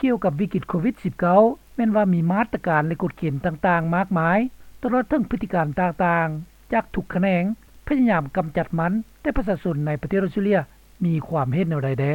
ກ່ຽວກັບວິກິດໂຄວິດ-19 ແມ່ນວ່າມີມາດຕະການ ແລະກົດເກນຕ່າງໆມາກມາຍ ຕະຫຼອດເຖິງພຶດຕິການຕ່າງໆ ຈາກທຸກຂະແໜງ ພະຍາຍາມກຳຈັດມັນ ແຕ່ປະຊາຊົນໃນປະເທດອອສເຕຣເລັຽ ມີຄວາມເຫັນແນວໃດແດ່?